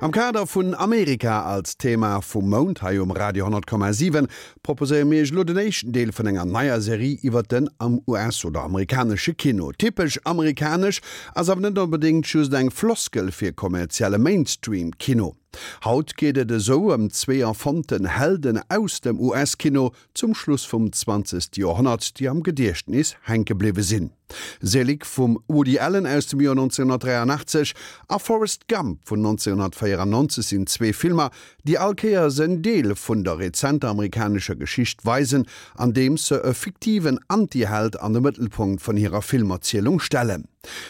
Am Kader vun Amerika als Thema vum Mount hei um Radio 10,7 proposéiere mir iech elo den éischten Deel vun enger neier Serie iwwert den US oder amerikanesche Kino. Typesch amerikanesch ass awer net onbedéngt just eng Floskel fir kommerzielle Mainstream-Kino. Haut geet et esou ëm zwee erfonnten Helden aus dem US-Kino zum Schluss vum zwanzegste Joerhonnert, déi am Gediechtnis hänke bliwwe sinn. Selig vum Woody Allen aus dem Joer 1983 a Forrest Gump vun 1994 sinn zwee Filmer, déi all Kéiers en Deel vun der rezenter amerikanescher Geschicht weisen, andeems se e fiktiven Antiheld an de Mëttelpunkt vun hirer Filmerzielung stellen.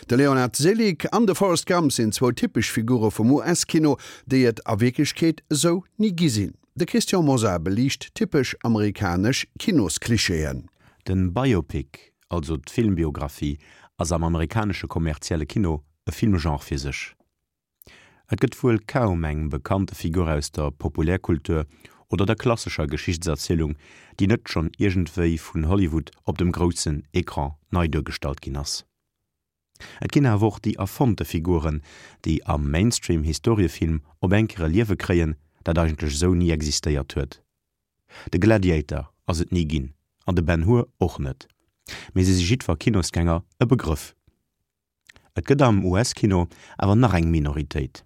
De Leonard Selig an de Forrest Gump sinn zwou typesch Figure vum US-Kino, déi et a Wierklechkeet esou ni gi sinn. De Christian Mosar beliicht typesch amerikanesch Kinosklischeeën. Den Biopic, also d'Filmbiographie, ass am amerikanesche kommerzielle Kino e Filmgenre fir sech. Et gëtt wuel kaum eng bekannte Figur aus der Populärkultur oder der klassescher Geschichtserzielung, déi net schonn iergendwéi vun Hollywood op dem groussen Ecran nei duergestallt ginn ass. Et ginn awer och déi erfonnte Figuren, déi am Mainstream-Historiefilm op eng Kéier e Liewe kréien, dat eigentlech esou ni existéiert huet. De Gladiator ass et ni ginn an de Ben Hur och net, mee se si jiddwer Kinosgänger e Begrëff. Et gëtt am US-Kino awer nach eng Minoritéit,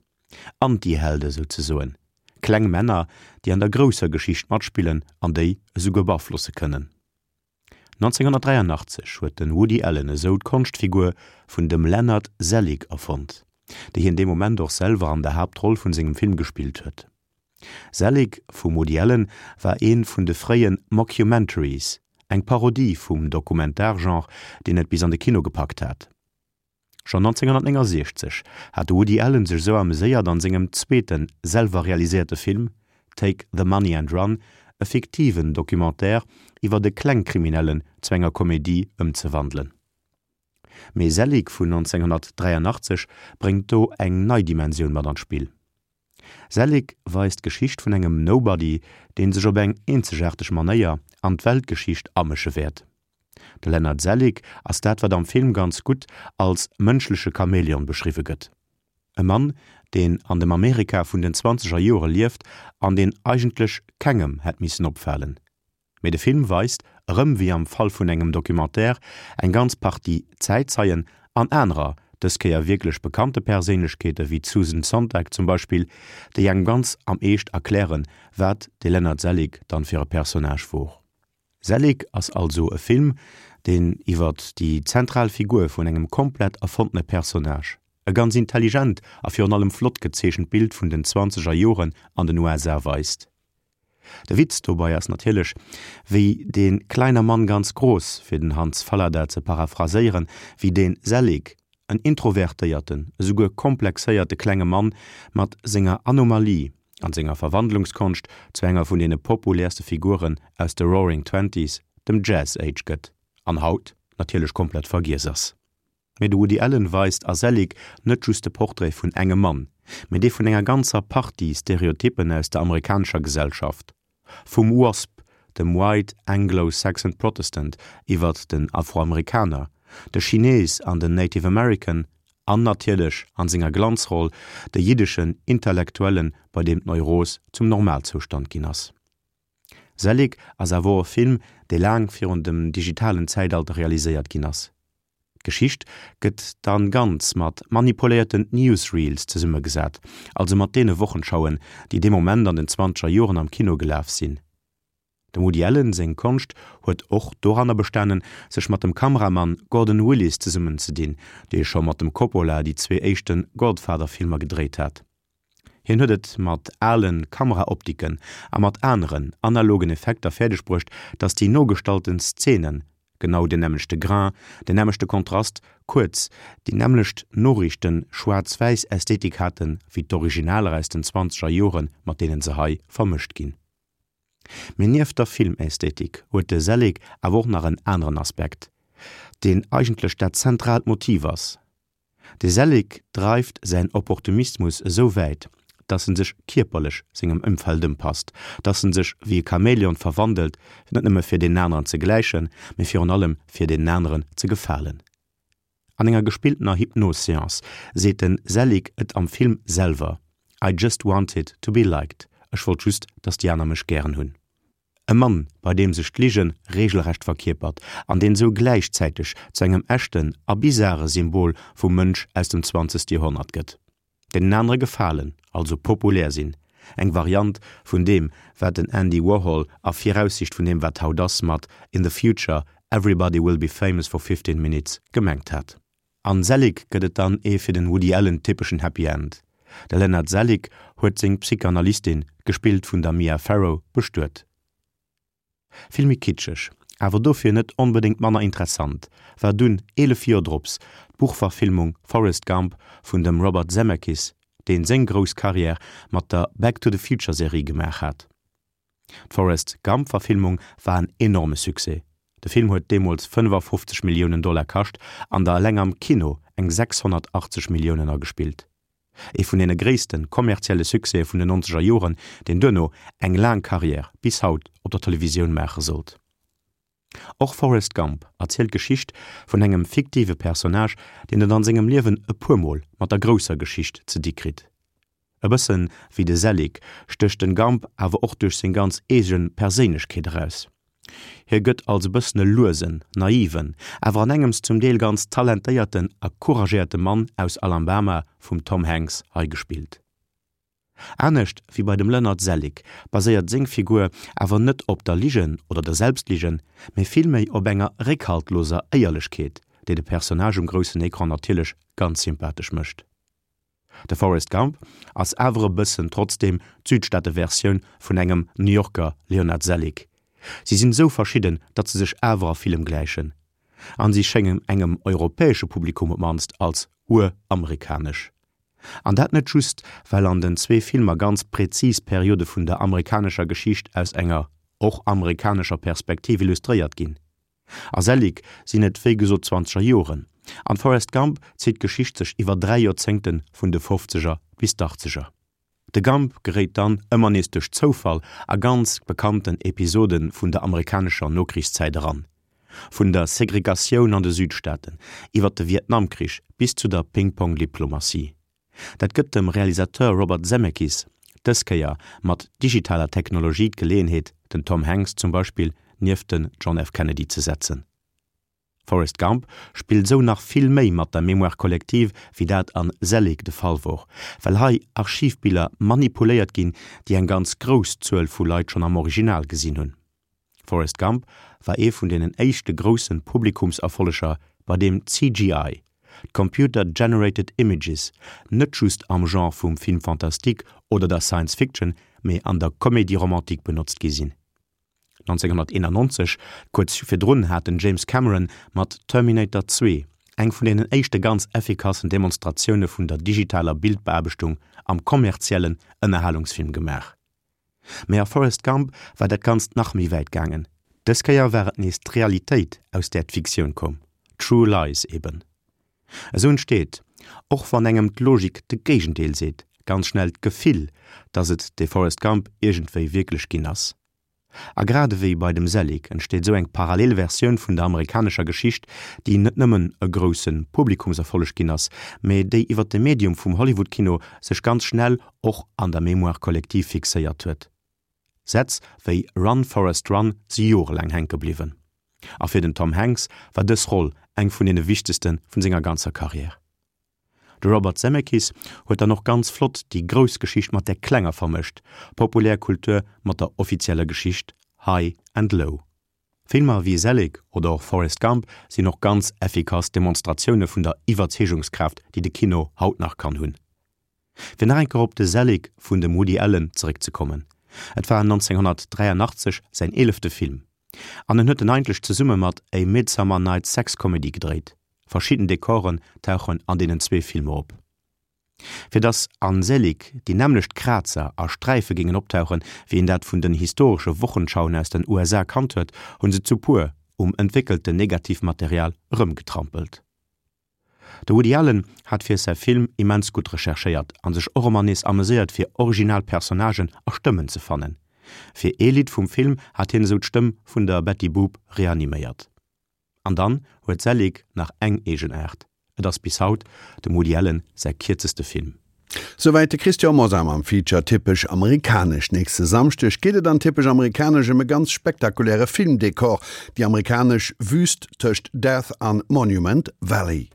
Antihelde souzesoen, kleng Männer, déi an der grousser Geschicht matspillen an déi esouguer beaflosse kënnen. 1983 huet de Woody Allen esou d'Konschtfigur vun dem Leonard Selig erfonnt, déi hien dee Moment och selwer an der Haaptroll vun sengem Film gespillt huet. Selig vum Woody Allen war ee vun de fréie Mockumentaries, eng Parodie vum Dokumentargenre, deen et bis an de Kino gepackt hat. Schonn 1969 hat de Woody Allen sech esou ameséiert an sengem zweete selwer realiséierte Film Take the Money and Run e fiktiven Documentaire iwwert e Klengkriminellen zu enger Komedie ëmzewandelen. Mee Selig vun 1983 bréngt do eng nei Dimensioun mat an d'Spill. Selig weist d'Geschicht vun engem Nobody, deen sech op eng eenzegaarteg Manéier an d'Weltgeschicht amësche wäert. De Leonard Selig ass dat, wat am Film ganz gutt als mënschleche Chamäleon beschriwwe gëtt. E Mann, deen an dem Amerika vun den zwanzeger Joere lieft an deen eigentlech kengem hätt missen opfalen. Mee de Film weist, erëm wéi am Fall vun engem Documentaire, eng ganz Partie Zäitzeien an anerer, dës Kéier wierklech bekannte Perséinlechkeete wéi d'Susan Sontag zum Beispill, déi engem ganz am Eescht erklären, wat de Leonard Selig dann fir e Personnage wor. Selig ass also e Film, deen iwwert déi zentral Figur vun engem komplett erfonntene Personnage e ganz intelligent a virun allem flott gezeechent Bild vun den zwanzeger Joren an den USA weist. De Witz dobei ass natierlech, wéi dee kleiner Mann ganz groß, fir den Hans Fallada ze paraphraséieren, wéi dee Selig, en introvertéierten, esouguer komplexéierte klenge Mann mat senger Anomalie an senger Verwandlungskonscht zu enger vun deene populäerste Figuren aus de Roaring Twenties, dem Jazz Age gëtt an haut natierlech komplett vergiess ass. Mee de Woody Allen weist a Selig net just de Portrait vun engem Mann, mee dee vun enger ganzer Partie Stereotyppen aus der amerikanescher Gesellschaft, vum WASP, dem White Anglo-Saxon Protestant, iwwert den Afroamerikaner, de Chines an den Native American an natierlech, an senger Glanzroll, de jiddeschen Intellektuellen, bei deem d'Neuros zum Normalzoustand ginn ass. Selig ass awer och e Film, dee laang virun dem digitalen Zäitalter realiséiert ginn ass. D'Geschicht gëtt dann ganz mat manipuléierten Newsreels zesummegesat, also mat deene Wochenschauen, déi dee Moment an den zwanzeger Joren am Kino gelaf sinn. Dem Woody Allen seng Konscht huet och doranner bestanen, sech mat dem Kameramann Gordon Willis zesummenzedinn, dee scho mat dem Coppola déi zwee éischte Godfather-Filmer gedréit hat. Hien huet et mat ale Kameraoptiken a mat aneren analogen Effekter fäerdeg bruecht, datt déi nogestallten Szenen genau deen nämmlechte Grain, deen nämmlechte Kontrast, kuerz, déi nämmlecht Noriichten-Schwaarz-Wäiss-Ästhetik haten, wéi d'Originaler aus den zwanzeger Joren, mat deenen se hei vermëscht ginn. Mee nieft der Filmästhetik huet de Selig awer och nach en aneren Aspekt, deen eigentlech dat zentraalt Motiv ass, De Selig dreift säin Opportunismus esou wäit, dass en sech kierperlech sengem Ëmfeld ëmpasst, dass en sech wéi e Chamäleon verwandelt, net nëmme fir deenen aneren ze gläichen, mee virun allem fir deenen aneren ze gefalen. An enger gespilltener Hypnos-Seance seet de Selig et am Film selwer. I just wanted to be liked, ech wollt just, datt déi aner mech gären hunn. E Mann, bei deem sech d'Lige reegelrecht verkierpert an deen esou gläichzäiteg zu engem echten a bizare Symbol vum Mënsch aus dem zwanzegste Joerhonnert gëtt. Deenen anere gefalen, also populär sinn, eng Variant vun deem, wat den Andy Warhol a Viraussiicht vun deem, wat haut ass, mat In the future, everybody will be famous for 15 minutes gemengt hat. An Selig gëtt et dann ee fir den Woody Allen typeschen Happy End. De Leonard Selig huet seng Psychanalystin, gespillt vun der Mia Farrow, bestuet. Vill méi kitscheg, awer dofir net onbedéngt manner interessant, war dunn, 11 Joer drops, d'Buchverfilmung Forrest Gump vun dem Robert Zemeckis, deen seng grouss Karriär mat der Back to the Future Serie gemaach hat. D'Forrest Gump-Verfilmung war en enorme Succès. De Film huet deemools 55 Milliounen Dollar kascht an der eleng am Kino eng 680 Milliounen agespillt. Ee vun deene gréisste kommerzielle Succèse vun den nonzeger Joren, deen duerno eng laang Karriär bis haut op der Televisioun maache sollt. Och Forrest Gump erzielt d'Geschicht vun engem fiktive Personnage, deen et an sengem Liewen e puer Mol mat der grousser Geschicht ze di kritt. E bëssen wéi de Selig stécht den Gump awer och duerch seng ganz eegen Perséinlechkeet eraus. Hie gëtt als e bëssen e luesen, naiven, awer an engems zum Deel ganz talentéierten a couragéierte Mann aus Alambama vum Tom Hanks hei gespillt. Anescht wéi bei dem Leonard Selig baséiert seng Figur awer net op der Ligen oder der Selbstligen, mee villméi op enger réckhaltloser Éierlechkeet, déi de Personnage um groussen Ecran natierlech ganz sympathesch mécht. De Forrest Gump ass awer e bëssen trotzdeem d'Südstaateversioun vun engem New Yorker Leonard Selig. Si sinn esou verschidden, datt se sech awer a villem gläichen. An si schéngen engem europäesche Publikum op mannst als ur-amerikanesch. An dat net just, well an den zwee Filmer ganz präzis Periode vun der amerikanescher Geschicht aus enger och amerikanescher Perspektiv illustréiert ginn. A Selig sinn et wéi gesot d'Zwanzeger Joren, an Forrest Gump zitt d'Geschicht sech iwwer 3 Joerzéngte vun de Fofzeger bis d'Achtzeger. De Gump geréit dann ëmmer nees duerch Zoufall a ganz bekannten Episode vun der amerikanescher Nokrichszäit eran, vun der Segregatioun an de Südstaaten, iwwer de Vietnamkrich bis zu der Ping-Pong-Diplomatie. Dat gëtt dem Realisateur Robert Zemeckis dës Kéier mat digitaler Technologie d'Geleeënheet, den Tom Hanks zum Beispill nieft den John F. Kennedy ze setzen. Forrest Gump spillt esou nach vill méi mat der Mémoire collective wéi dat an Selig de Fall wor, well hei Archivbiller manipuléiert ginn, déi eng ganz grouss Zuel vu Leit schonn am Original gesinn hunn. Forrest Gump war ee vun deenen éischte grousse Publikumserfolleger, bei deem CGI, d'Computer Generated Images, net just am Genre vum Film fantastique oder der Science Fiction, mee an der Comédie romantique benotzt gi sinn. 1991, kuerz virdrun, hat den James Cameron mat Terminator 2 eng vun deenen éischte ganz effikassen Demonstratioune vun der digitaler Bildbeaarbechtung am kommerziellen Ënnerhalungsfilm gemaach. Mee a Forrest Gump war dat Ganzt nach méi wäit gaangen. Dës Kéier war et nees d'Realitéit, aus där d'Fiktioun koum, True Lies eben. Esou entsteet, och wann engem d'Logik de Géigendeel seet, ganz schnell d'Gefill, dass et dee Forrest Gump iergendwéi wierklech ginn ass. A grad ewéi bei dem Selig entsteet esou eng parallel Versioun vun der amerikanescher Geschicht, déi net nëmmen e grousse Publikumserfolleg ginn ass, mee déi iwwer de Medium vum Hollywood-Kino sech ganz schnell och an der Mémoire collective fixéiert huet. Sätz wéi Run Forrest Run si jorelaang hänke bliwwen. A fir den Tom Hanks war dës Roll eng vun deene wichtegste vun senger ganzer Karriär. De Robert Zemeckis huet dann och ganz flott déi grouss Geschicht mat där klenger vermëscht, populär Kultur mat der offizieller Geschicht, High and Low. Filmer wéi Selig oder och Forrest Gump sinn och ganz effikass Demonstratioune vun der Iwwerzeegungskraaft, déi de Kino haut nach kann hunn. Fir nach eng Kéier op de Selig vun dem Woody Allen zeréckzekommen, Et war 1983 säin eelefte Film an en huet en eigentlech zesumme mat A Midsummer Night's Sex Comedy gedréit. Verschidden Dekoren tauchen an deenen zwee Filmer op. Fir dass an Selig déi nämmlecht Krazer a Sträife géingen optauchen, wéi een dat vun den historesche Wochenschauen aus den USA kannt huet, hunn se zu puer um entwéckelten Negativmaterial erëmgetrampelt. De Woody Allen hat fir säi Film immens gutt recherchéiert a sech och ëmmer nees ameséiert fir original Personnagen a Stëmmen ze fannen. Fir ee Lidd vum Film hat hien esou d'Stëmm vun der Betty Boop reaniméiert. An dann huet Selig nach eng Eegenaart, et ass bis haut dem Woody Allen säi kierzeste Film. Souwäit de Christian Mosar mam Feature Typesch amerikanesch. Nächste Samschdeg geet et an Typesch amerikanesch ëm e ganz spektakuläre Filmdekor, déi amerikanesch Wüst tëscht Death an Monument Valley.